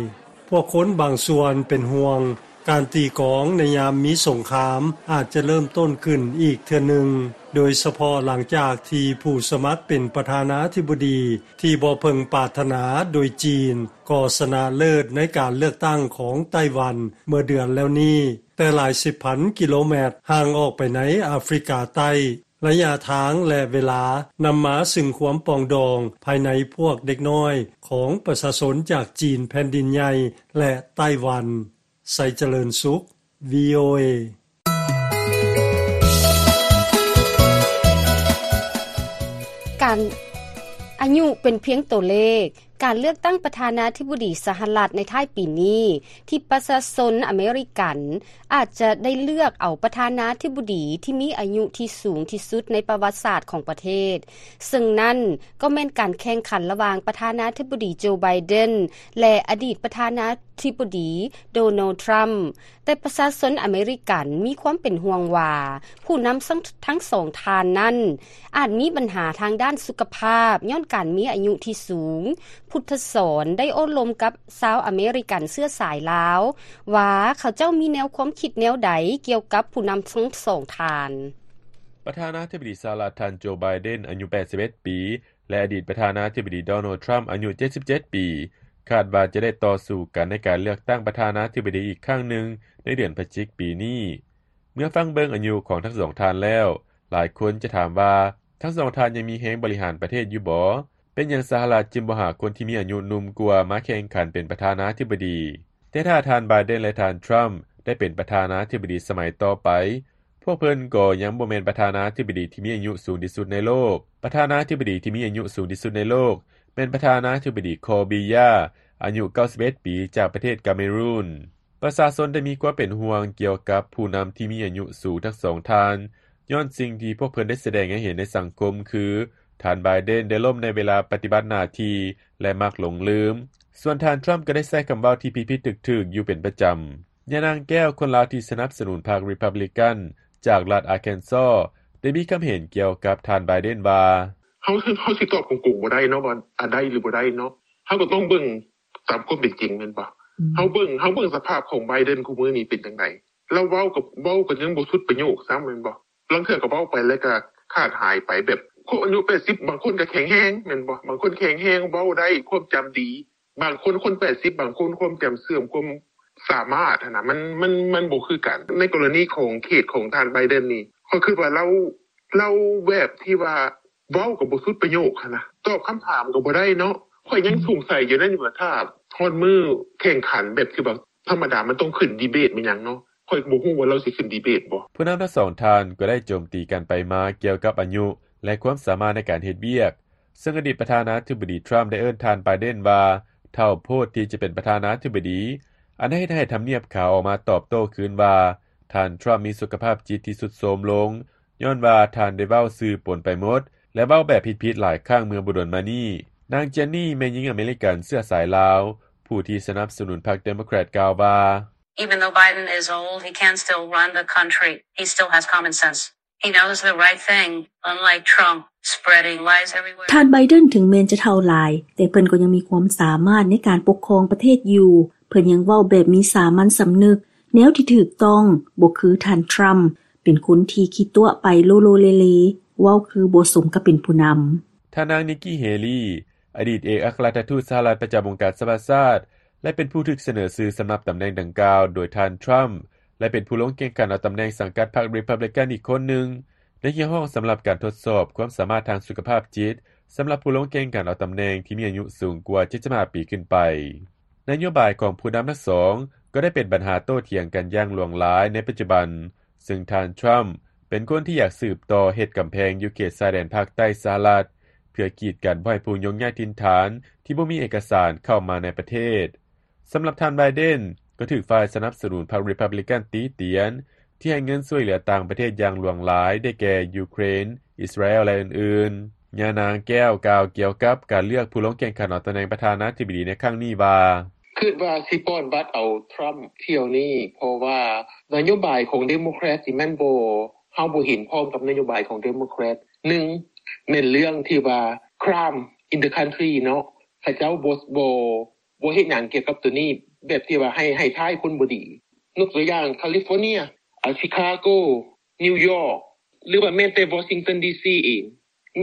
ພວກຄົນບາງສ່ວນເປັນຫ່ວງ, ການຕີກອງໃນຍາມມີສົງຄາມອາດຈະເລີ່ມຕົ້ນຂຶ້ນອີກເທື່ອໜຶ່ງ, ໂດຍສະເພາະຫຼັງຈາກທີ່ຜູ້ສະໝັກເປັນປະທານາທິບໍດີທີ່ບໍ່ເພິ່ງປາດຖະໜາໂດຍຈີນ ກໍຊະນະເລີດໃນການເລືອກຕັ້ງຂອງໄຕ້ຫວັນເມື່ອເດືອນແລ້ວນີ້, ແຕ່ຫຼາຍສິບພັນກິໂລແມັດຫ່າງອອກໄປໃນອາຟຣິກາໃຕ້. ໄລຍະທາງ ແລະ ເວລານຳມາຊຶ່ງຄວາມປອງດອງພາຍໃນພວກເດັກນ້ອຍຂອງປະຊາຊົນຈາກຈີນແຜ່ນດິນໃຫຍ່ ແລະ ໄຕ້ຫວັນ. ໄຊຈະເລີນສຸກ ວີໂອເອ. ການ ອາຍຸເປັນພຽງຕົວເລກ. ການເລືອກຕັ້ງປະທານາທິບໍດີສະຫະລັດໃນທ້າຍປີນີ້ ທີ່ປະຊາຊົນອາເມລິກັນອາດຈະໄດ້ເລືອກເອົາປະທານາທິບໍດີທີ່ມີອາຍຸທີ່ສູງທີ່ສຸດໃນປະຫວັດສາດຂອງປະເທດ, ເຊິ່ງນັ້ນກໍແມ່ນການແຂ່ງຂັນລະຫວ່າງປະທານາທິບໍດີໂຈ ໄບເດັນ ແລະ ອະດີດປະທານາທິບໍດີໂດນັລ ທຣຳ. ແຕ່ປະຊາຊົນອາເມລິກັນມີຄວາມເປັນຫ່ວງວ່າ ຜູ້ນຳທັງສອງທ່ານນັ້ນ ອາດມີບັນຫາທາງດ້ານສຸຂະພາບ ຍ້ອນການມີອາຍຸທີ່ສູງ. ພຸດທະສອນໄດ້ໂອ້ລົມກັບຊາວອາເມລິກັນເຊື້ອສາຍລາວ ວ່າເຂົາເຈົ້າມີແນວຄວາມຄິດແນວໃດກ່ຽວກັບຜູ້ນຳທັງສອງທ່ານ. ປະທານາທິບໍດີສະຫະລັດ ທ່ານໂຈ ໄບເດັນ ອາຍຸແປດສິບເອັດປີ ແລະ ອະດີດປະທານາທິບໍດີໂດນັລ ທຣຳ ອາຍຸເຈັດສິບເຈັດປີ ຄາດວ່າຈະໄດ້ຕໍ່ສູ້ກັນໃນການເລືອກຕັ້ງປະທານາທິບໍດີອີກຄັ້ງໜຶ່ງໃນເດືອນພະຈິກປີນີ້. ເມື່ອຟັງເບິ່ງອາຍຸຂອງທັງສອງທ່ານແລ້ວ, ຫຼາຍຄົນຈະຖາມວ່າ ທັງສອງທ່ານຍັງມີແຮງບໍລິຫານປະເທດຢູ່ບໍ? ເປັນຫຍັງສະຫະລັດຈຶ່ງບໍ່ຫາຄົນທີ່ມີອາຍຸໜຸ່ມກວ່າມາແຂ່ງຂັນເປັນປະທານາທິບໍດີ? ແຕ່ຖ້າທ່ານ ໄບເດັນ ແລະ ທ່ານ ທຣຳ ໄດ້ເປັນປະທານາທິບໍດີສະໄໝຕໍ່ໄປ, ພວກເພິ່ນກໍຍັງບໍ່ແມ່ນປະທານາທິບໍດີທີ່ມີອາຍຸສູງທີ່ສຸດໃນໂລກ. ປະທານາທິບໍດີທີ່ມີອາຍຸສູງທີ່ສຸດໃນໂລກ ແມ່ນປະທານາທິບໍດີ ຄໍບີ ຢາ ອາຍຸເກົ້າສິບເອັດປີ ຈາກປະເທດກາເມຣູນ. ປະຊາຊົນໄດ້ມີຄວາມເປັນຫ່ວງກ່ຽວກັບຜູ້ນຳທີ່ມີອາຍຸສູງທັງສອງທ່ານ ຍ້ອນສິ່ງທີ່ພວກເພິ່ນໄດ້ສະແດງໃຫ້ເຫັນໃນສັງຄົມຄື ທ່ານ ໄບເດັນ ໄດ້ລົ້ມໃນເວລາປະຕິບັດໜ້າທີ່ ແລະ ມັກຫຼົງລືມ. ສ່ວນທ່ານ ທຣຳ ກໍໄດ້ໃຊ້ຄຳເວົ້າທີ່ຜິດໆຖືກໆຢູ່ເປັນປະຈຳ. ຍານາງແກ້ວ, ຄົນລາວທີ່ສະໜັບສະໜູນພັກ Republican ຈາກລັດ Arkansas ໄດ້ມີຄຳເຫັນກ່ຽວກັບທ່ານ ໄບເດັນ ວ່າ ເຮົາ ເຮົາຊິຕອບກົງໆບໍ່ໄດ້ເນາະ ວ່າ ອາ ໄດ້ຫຼືບໍ່ໄດ້ເນາະ. ເຮົາກໍຕ້ອງເບິ່ງຕາມຄວາມເປັນຈິງແມ່ນບໍ່? ເຮົາເບິ່ງ ເຮົາເບິ່ງສະພາບຂອງ ໄບເດັນ ຄູ່ມື້ນີ້ເປັນຈັ່ງໃດ? ລາວເວົ້າກໍ ເວົ້າກໍຍັງບໍ່ສຸດປະໂຫຍກຊ້ຳແມ່ນບໍ່? ລາງເທື່ອກໍເວົ້າໄປແລ້ວກໍຂາດຫາຍໄປ ແບບຄົນອາຍຸແປດສິບ ບາງຄົນກໍແຂງແຮງແມ່ນບໍ່? ບາງຄົນແຂງແຮງ ເວົ້າໄດ້ ຄວາມຈຳດີ. ບາງຄົນ ຄົນແປດສິບ ບາງຄົນຄວາມຈຳເສື່ອມ ຄວາມສາມາດຫັ້ນນະ ມັນ ມັນ ມັນບໍ່ຄືກັນ. ໃນກໍລະນີຂອງເຄສຂອງທ່ານ ໄບເດັນ ນີ້ ຂ້ອຍຄິດວ່າລາວ ລາວແບບທີ່ວ່າເວົ້າກໍບໍ່ສຸດປະໂຫຍກຫັ້ນນະ ຕອບຄຳຖາມກໍບໍ່ໄດ້ເນາະ. ຂ້ອຍຍັງສົງໄສຢູ່ນັ້ນຢູ່ວ່າ ຖ້າຮອດມື້ແຂ່ງຂັນແບບທີ່ວ່າທຳມະດາ ມັນຕ້ອງຂຶ້ນດີເບດແມ່ນຫຍັງເນາະ ຂ້ອຍກໍບໍ່ຮູ້ວ່າລາວຊິຂຶ້ນດີເບດບໍ່. ຜູ້ນຳທັງສອງທ່ານກໍໄດ້ໂຈມຕີກັນໄປມາກ່ຽວກັບອາຍຸ ແລະ ຄວາມສາມາດໃນການເຮັດວຽກ, ເຊິ່ງອະດີດປະທານາທິບໍດີ ທຣຳ ໄດ້ເອີ້ນທ່ານ ໄບເດັນ ວ່າເຖົ້າໂພດທີ່ຈະເປັນປະທານາທິບໍດີ, ອັນເຮັດໃຫ້ທຳນຽບຂາວອອກມາຕອບໂຕ້ຄືນວ່າ ທ່ານ ທຣຳ ມີສຸຂະພາບຈິດທີ່ຊຸດໂຊມລົງ ຍ້ອນວ່າທ່ານໄດ້ເວົ້າສື່ປົນໄປໝົດ ແລະ ເວົ້າແບບຜິດໆຫຼາຍຄັ້ງເມື່ອບໍ່ດົນມານີ້. ນາງ ເຈນນີ ແມ່ຍິງອາເມລິກັນເຊື້ອສາຍລາວ ຜູ້ທີ່ສະໜັບສະໜູນພັກ Democrat ກ່າວວ່າ Even though Biden is old, he can still run the country. He still has common sense. He knows the right thing, unlike Trump, spreading lies everywhere. ທ່ານ ໄບເດັນ ເຖິງແມ່ນຈະເຖົ້າຫຼາຍ, ແຕ່ເພິ່ນກໍຍັງມີຄວາມສາມາດໃນການປົກຄອງປະເທດຢູ່. ເພິ່ນຍັງເວົ້າແບບມີສາມັນສຳນຶກ, ແນວທີ່ຖືກຕ້ອງ, ບໍ່ຄືທ່ານ ທຣຳ ເປັນຄົນທີ່ຂີ້ຕົວະໄປໂລໂລເລເລ, ເວົ້າຄືບໍ່ສົມກັບເປັນຜູ້ນຳ. ທ່ານນາງ ນິກກີ້ ເຮລີ ອະດີດເອກອັກຄະລັດຖະທູດສະຫະລັດປະຈຳອົງການສະຫະປະຊາຊາດ ແລະ ເປັນຜູ້ຖືກສະເໜີຊື່ສຳລັບຕຳແໜ່ງດັ່ງກ່າວໂດຍທ່ານ ທຣຳ ແລະ ເປັນຜູ້ລົງແຂ່ງຂັນເອົາຕຳແໜ່ງສັງກັດພັກ Republican ອີກຄົນໜຶ່ງ ໄດ້ຮຽກຮ້ອງສຳລັບການທົດສອບຄວາມສາມາດທາງສຸຂະພາບຈິດ ສຳລັບຜູ້ລົງແຂ່ງຂັນເອົາຕຳແໜ່ງທີ່ມີອາຍຸສູງກວ່າເຈັດສິບຫ້າປີຂຶ້ນໄປ. ນະໂຍບາຍຂອງຜູ້ນຳທັງສອງກໍໄດ້ເປັນບັນຫາໂຕ້ຖຽງກັນຢ່າງຫຼວງຫຼາຍໃນປັດຈຸບັນ, ເຊິ່ງທ່ານ ທຣຳ ເປັນຄົນທີ່ຢາກສືບຕໍ່ເຮັດກຳແພງຢູ່ເຂດຊາຍແດນພາກໃຕ້ສະຫະລັດ ເພື່ອກີດກັນບໍ່ໃຫ້ຜູ້ຍົກຍ້າຍຖິ່ນຖານທີ່ບໍ່ມີເອກະສານເຂົ້າມາໃນປະເທດ. ສຳລັບທ່ານ ໄບເດັນ ກໍຖືກຝ່າຍສະໜັບສະໜູນພັກ Republican ຕິຕຽນ ທີ່ໃຫ້ເງິນຊ່ວຍເຫຼືອຕ່າງປະເທດຢ່າງຫຼວງຫຼາຍ ໄດ້ແກ່ ຢູເຄຣນ, ອິດສະຣາແອລ ແລະ ອື່ນໆ. ຍານາງແກ້ວກ່າວກ່ຽວກັບການເລືອກຜູ້ລົງແຂ່ງຂັນເອົາຕຳແໜ່ງປະທານາທິບໍດີໃນຄັ້ງນີ້ວ່າ ຄິດວ່າຊິປ້ອນບັດເອົາ Trump ຖ້ຽວນີ້ ເພາະວ່ານະໂຍບາຍຂອງ Democrat ນີ້ມັນບໍ່ ເຮົາບໍ່ເຫັນພ້ອມກັບນະໂຍບາຍຂອງ Democrat. ໜຶ່ງ ແມ່ນເລື່ອງທີ່ວ່າ crime in the country ເນາະ, ເຂົາເຈົ້າບໍ່ ບໍ່ ບໍ່ເຮັດຫຍັງກ່ຽວກັບໂຕນີ້ ແບບທີ່ວ່າໃຫ້ ໃຫ້ຮ້າຍຄົນບໍ່ດີ. ຍົກຕົວຢ່າງ California, ອາ Chicago, New York ຫຼືວ່າແມ່ນແຕ່ Washington ດີ ຊີ ເອງ.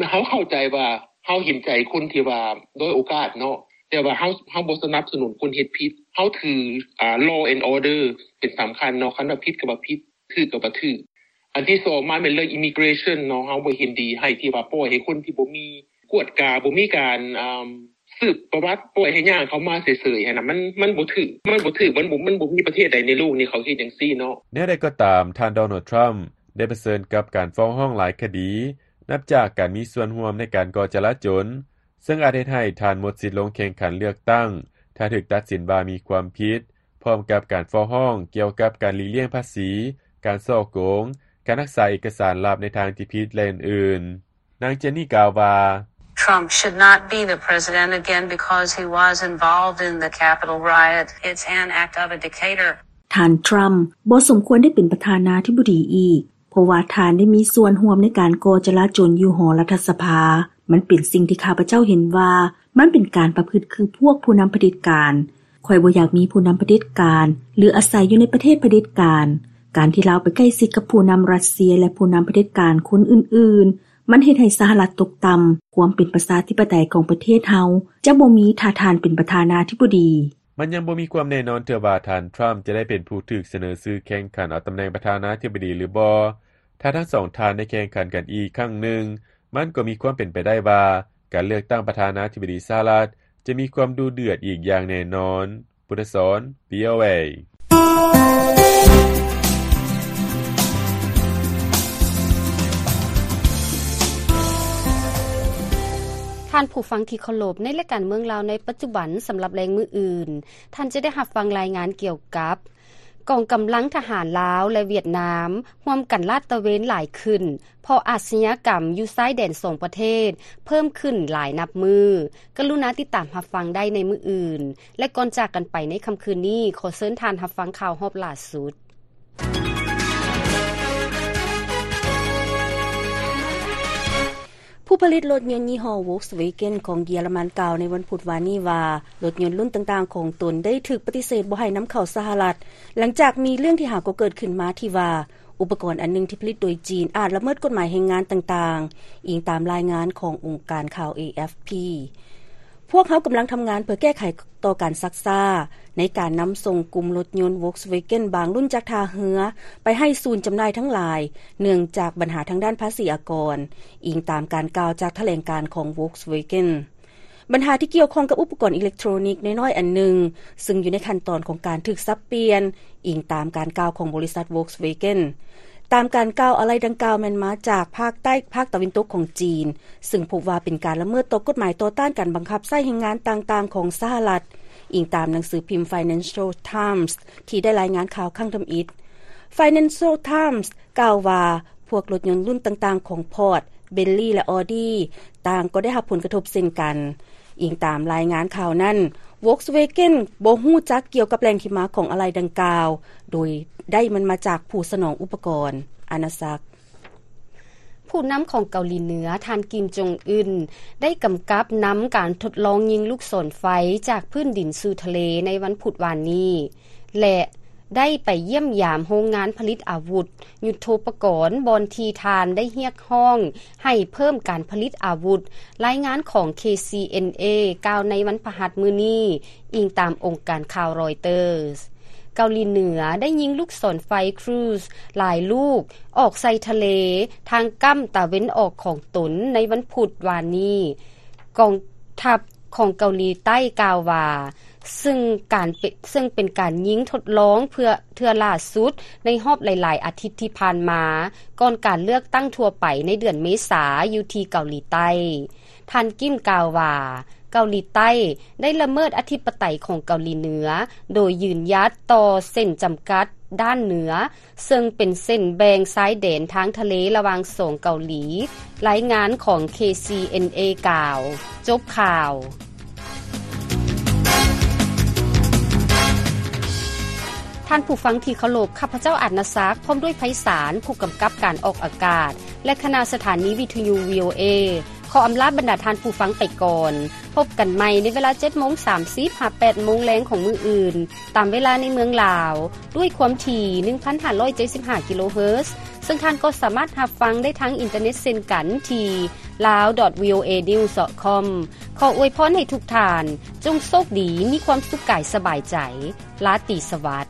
ເຮົາເຂົ້າໃຈວ່າ ເຮົາເຫັນໃຈຄົນທີ່ວ່າດ້ອຍໂອກາດເນາະ, ແຕ່ວ່າເຮົາ ເຮົາບໍ່ສະໜັບສະໜູນຄົນເຮັດຜິດ. ເຮົາຖື ອາ law and order ເປັນສຳຄັນເນາະ, ຄັນວ່າຜິດກໍວ່າຜິດ, ຖືກກໍວ່າຖືກ. ອັນທີສອງມາແມ່ນເລື່ອງ immigration ເນາະ, ເຮົາບໍ່ເຫັນດີໃຫ້ທີ່ວ່າປ່ອຍໃຫ້ຄົນທີ່ບໍ່ມີກວດກາ, ບໍ່ມີການ ອາ ສືບປະຫວັດ ປ່ອຍໃຫ້ຍ່າງເຂົ້າມາເສີຍໆຫັ້ນນະ ມັນ ມັນບໍ່ຖືກ ມັນບໍ່ຖືກ ມັນບໍ່ ມັນບໍ່ມີປະເທດໃດໃນໂລກນີ້ເຂົາເຮັດຈັ່ງຊີ້ເນາະ. ແນວໃດກໍຕາມ, ທ່ານ ໂດນັລ ທຣຳ ໄດ້ປະເຊີນກັບການຟ້ອງຮ້ອງຫຼາຍຄະດີ ນັບຈາກການມີສ່ວນຮ່ວມໃນການກໍ່ຈະລາຈົນ, ເຊິ່ງອາດເຮັດໃຫ້ທ່ານໝົດສິດລົງແຂ່ງຂັນເລືອກຕັ້ງ ຖ້າຖືກຕັດສິນວ່າມີຄວາມຜິດ, ພ້ອມກັບການຟ້ອງຮ້ອງກ່ຽວກັບການຫຼີກລ່ຽງພາສີ, ການສໍ້ໂກງ, ການຮັກສາເອກະສານລັບໃນທາງທີ່ຜິດ ແລະ ອື່ນໆ. ນາງ ເຈນນີ ກ່າວວ່າ, Trump should not be the president again because he was involved in the Capitol riot. It's an act of a dictator. ທ່ານ ທຣຳ ບໍ່ສົມຄວນໄດ້ເປັນປະທານາທິບໍດີອີກ ເພາະວ່າທ່ານໄດ້ມີສ່ວນຮ່ວມໃນການກໍ່ຈະລາຈົນຢູ່ຫໍລັດຖະສະພາ. ມັນເປັນສິ່ງທີ່ຂ້າພະເຈົ້າເຫັນວ່າ ມັນເປັນການປະພຶດຄືພວກຜູ້ນຳຜະເດັດການ. ຂ້ອຍບໍ່ຢາກມີຜູ້ນຳຜະເດັດການ ຫຼື ອາໄສຢູ່ໃນປະເທດຜະເດັດການ. ການທີ່ລາວໄປໃກ້ຊິດກັບຜູ້ນຳຣັດເຊຍ ແລະ ຜູ້ນຳຜະເດັດການຄົນອື່ນໆ, ມັນເຮັດໃຫ້ສະຫະລັດຕົກຕ່ຳ. ຄວາມເປັນປະຊາທິປະໄຕຂອງປະເທດເຮົາຈະບໍ່ມີ ຖ້າທ່ານເປັນປະທານາທິບໍດີ. ມັນຍັງບໍ່ມີຄວາມແນ່ນອນເທື່ອວ່າທ່ານ ທຣຳ ຈະໄດ້ເປັນຜູ້ຖືກສະເໜີຊື່ແຂ່ງຂັນເອົາຕຳແໜ່ງປະທານາທິບໍດີຫຼືບໍ່. ຖ້າທັງສອງທ່ານໄດ້ແຂ່ງຂັນກັນອີກຄັ້ງໜຶ່ງ, ມັນກໍມີຄວາມເປັນໄປໄດ້ວ່າ ການເລືອກຕັ້ງປະທານາທິບໍດີສະຫະລັດຈະມີຄວາມດຸເດືອດອີກຢ່າງແນ່ນອນ. ບຸດທະສອນ ວີ ໂອ ເອ. ທ່ານຜູ້ຟັງທີ່ເຄົາລົບ, ໃນລາຍການເມືອງລາວໃນປັດຈຸບັນ ສຳລັບແລງມື້ອື່ນ, ທ່ານຈະໄດ້ຮັບຟັງລາຍງານກ່ຽວກັບ ກອງກຳລັງທະຫານລາວ ແລະ ຫວຽດນາມ ຮ່ວມກັນລາດຕະເວນຫຼາຍຂຶ້ນ ເພາະອາຊະຍາກຳຢູ່ຊາຍແດນສອງປະເທດເພີ່ມຂຶ້ນຫຼາຍນັບມື້. ກະລຸນາຕິດຕາມຮັບຟັງໄດ້ໃນມື້ອື່ນ ແລະ ກ່ອນຈາກກັນໄປໃນຄ່ຳຄືນນີ້, ຂໍເຊີນທ່ານຮັບຟັງຂ່າວຮອບລ່າສຸດ. ຜູ້ຜະລິດລົດຍົນຍີ່ຫໍ້ Volkswagen ຂອງເຢຍລະມັນ ກ່າວໃນວັນພຸດວານນີ້ວ່າ ລົດຍົນລຸ້ນຕ່າງໆຂອງຕົນໄດ້ຖືກປະຕິເສດບໍ່ໃຫ້ນຳເຂົ້າສະຫະລັດ, ຫຼັງຈາກມີເລື່ອງທີ່ຫາກໍເກີດຂຶ້ນມາທີ່ວ່າ ອຸປະກອນອັນໜຶ່ງທີ່ຜະລິດໂດຍຈີນອາດລະເມີດກົດໝາຍແຮງງານຕ່າງໆ, ອີງຕາມລາຍງານຂອງອົງການຂ່າວ ເອ ເອັຟ ພີ. ພວກເຮົາກຳລັງທຳງານເພື່ອແກ້ໄຂຕໍ່ການຊັກຊ້າໃນການນຳສົ່ງກຸ່ມລົດຍົນ Volkswagen ບາງລຸ້ນຈາກທ່າເຮືອໄປໃຫ້ສູນຈຳໜ່າຍທັງຫຼາຍ ເນື່ອງຈາກບັນຫາທາງດ້ານພາສີອາກອນ, ອີງຕາມການກ່າວຈາກຖະແຫຼງການຂອງ Volkswagen. ບັນຫາທີ່ກ່ຽວຂ້ອງກັບອຸປະກອນອີເລັກໂທຣນິກນ້ອຍໆອັນໜຶ່ງ, ຊຶ່ງຢູ່ໃນຂັ້ນຕອນຂອງການຖືກສັບປ່ຽນ, ອີງຕາມການກ່າວຂອງບໍລິສັດ Volkswagen. ຕາມການກ່າວ, ອາໄຫຼ່ດັ່ງກ່າວແມ່ນມາຈາກພາກໃຕ້, ພາກຕາເວັນຕົກຂອງຈີນ, ຊຶ່ງພົບວ່າເປັນການລະເມີດຕໍ່ກົດໝາຍຕໍ່ຕ້ານການບັງຄັບໃຊ້ແຮງງານຕ່າງໆຂອງສະຫະລັດ, ອີງຕາມໜັງສືພິມ Financial Times ທີ່ໄດ້ລາຍງານຂ່າວຄັ້ງທຳອິດ. Financial Times ກ່າວວ່າ ພວກລົດຍົນລຸ້ນຕ່າງໆຂອງ Ford, Bentley ແລະ Audi ຕ່າງກໍໄດ້ຮັບຜົນກະທົບເຊັ່ນກັນ. ອີງຕາມລາຍງານຂ່າວນັ້ນ, Volkswagen ບໍ່ຮູ້ຈັກກ່ຽວກັບແຫຼ່ງທີ່ມາຂອງອາໄຫຼ່ດັ່ງກ່າວ, ໂດຍໄດ້ມັນມາຈາກຜູ້ສະໜອງອຸປະກອນ. ອານາສັກ. ຜູ້ນຳຂອງເກົາຫຼີເໜືອ ທ່ານ ກິມ ຈົງອຶນ ໄດ້ກຳກັບນຳການທົດລອງຍິງລູກສອນໄຟຈາກພື້ນດິນສູ່ທະເລໃນວັນພຸດວານນີ້ ແລະ ໄດ້ໄປຢ້ຽມຢາມໂຮງງານຜະລິດອາວຸດຍຸດໂທປະກອນ ບ່ອນທີ່ທ່ານໄດ້ຮຽກຮ້ອງໃຫ້ເພີ່ມການຜະລິດອາວຸດ, ລາຍງານຂອງ ເຄ ຊີ ເອັນ ເອ ກ່າວໃນວັນພະຫັດມື້ນີ້, ອີງຕາມອົງການຂ່າວ Reuters. ເກົາຫຼີເໜືອໄດ້ຍິງລູກສອນໄຟ Cruise ຫຼາຍລູກອອກໃສ່ທະເລ ທາງກ້ຳຕາເວັນອອກຂອງຕົນໃນວັນພຸດວານນີ້. ກອງທັບຂອງເກົາຫຼີໃຕ້ກ່າວວ່າ, ເຊິ່ງການເປ-, ເຊິ່ງເປັນການຍິງທົດລອງເພື່ອເທື່ອລ່າສຸດໃນຮອບຫຼາຍໆອາທິດທີ່ຜ່ານມາ, ກ່ອນການເລືອກຕັ້ງທົ່ວໄປໃນເດືອນເມສາຢູ່ທີ່ເກົາຫຼີໃຕ້. ທ່ານ ກິມ ກ່າວວ່າ, ເກົາຫຼີໃຕ້ໄດ້ລະເມີດອະທິປະໄຕຂອງເກົາຫຼີເໜືອ ໂດຍຢືນຢັດຕໍ່ເສັ້ນຈຳກັດດ້ານເໜືອ, ເຊິ່ງເປັນເສັ້ນແບ່ງຊາຍແດນທາງທະເລລະຫວ່າງສອງເກົາຫຼີ, ລາຍງານຂອງ ເຄ ຊີ ເອັນ ເອ ກ່າວ. ຈົບຂ່າວ. ທ່ານຜູ້ຟັງທີ່ເຄົາລົບ, ຂ້າພະເຈົ້າ ອາດນະສັກ ພ້ອມດ້ວຍ ໄພສານ ຜູ້ກຳກັບການອອກອາກາດ ແລະ ຄະນະສະຖານີວິທະຍຸ ວີ ໂອ ເອ ຂໍອຳລາບັນດາທ່ານຜູ້ຟັງໄປກ່ອນ. ພົບກັນໃໝ່ໃນເວລາເຈັດໂມງສາມສິບ ຫາ ແປດໂມງແລງຂອງມື້ອື່ນ, ຕາມເວລາໃນເມືອງລາວ, ດ້ວຍຄວາມຖີ່ ໜຶ່ງພັນຫ້າຮ້ອຍເຈັດສິບຫ້າ ກິໂລເຮີດ, ເຊິ່ງທ່ານກໍສາມາດຮັບຟັງໄດ້ທາງອິນເຕີເນັດເຊັ່ນກັນທີ່ lawdotvoanews.com. ຂໍອວຍພອນໃຫ້ທຸກທ່ານ ຈົ່ງໂຊກດີ, ມີຄວາມສຸກກາຍສະບາຍໃຈ. ລາຕີສະຫວັດ.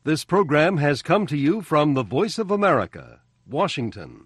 This program has come to you from the Voice of America, Washington.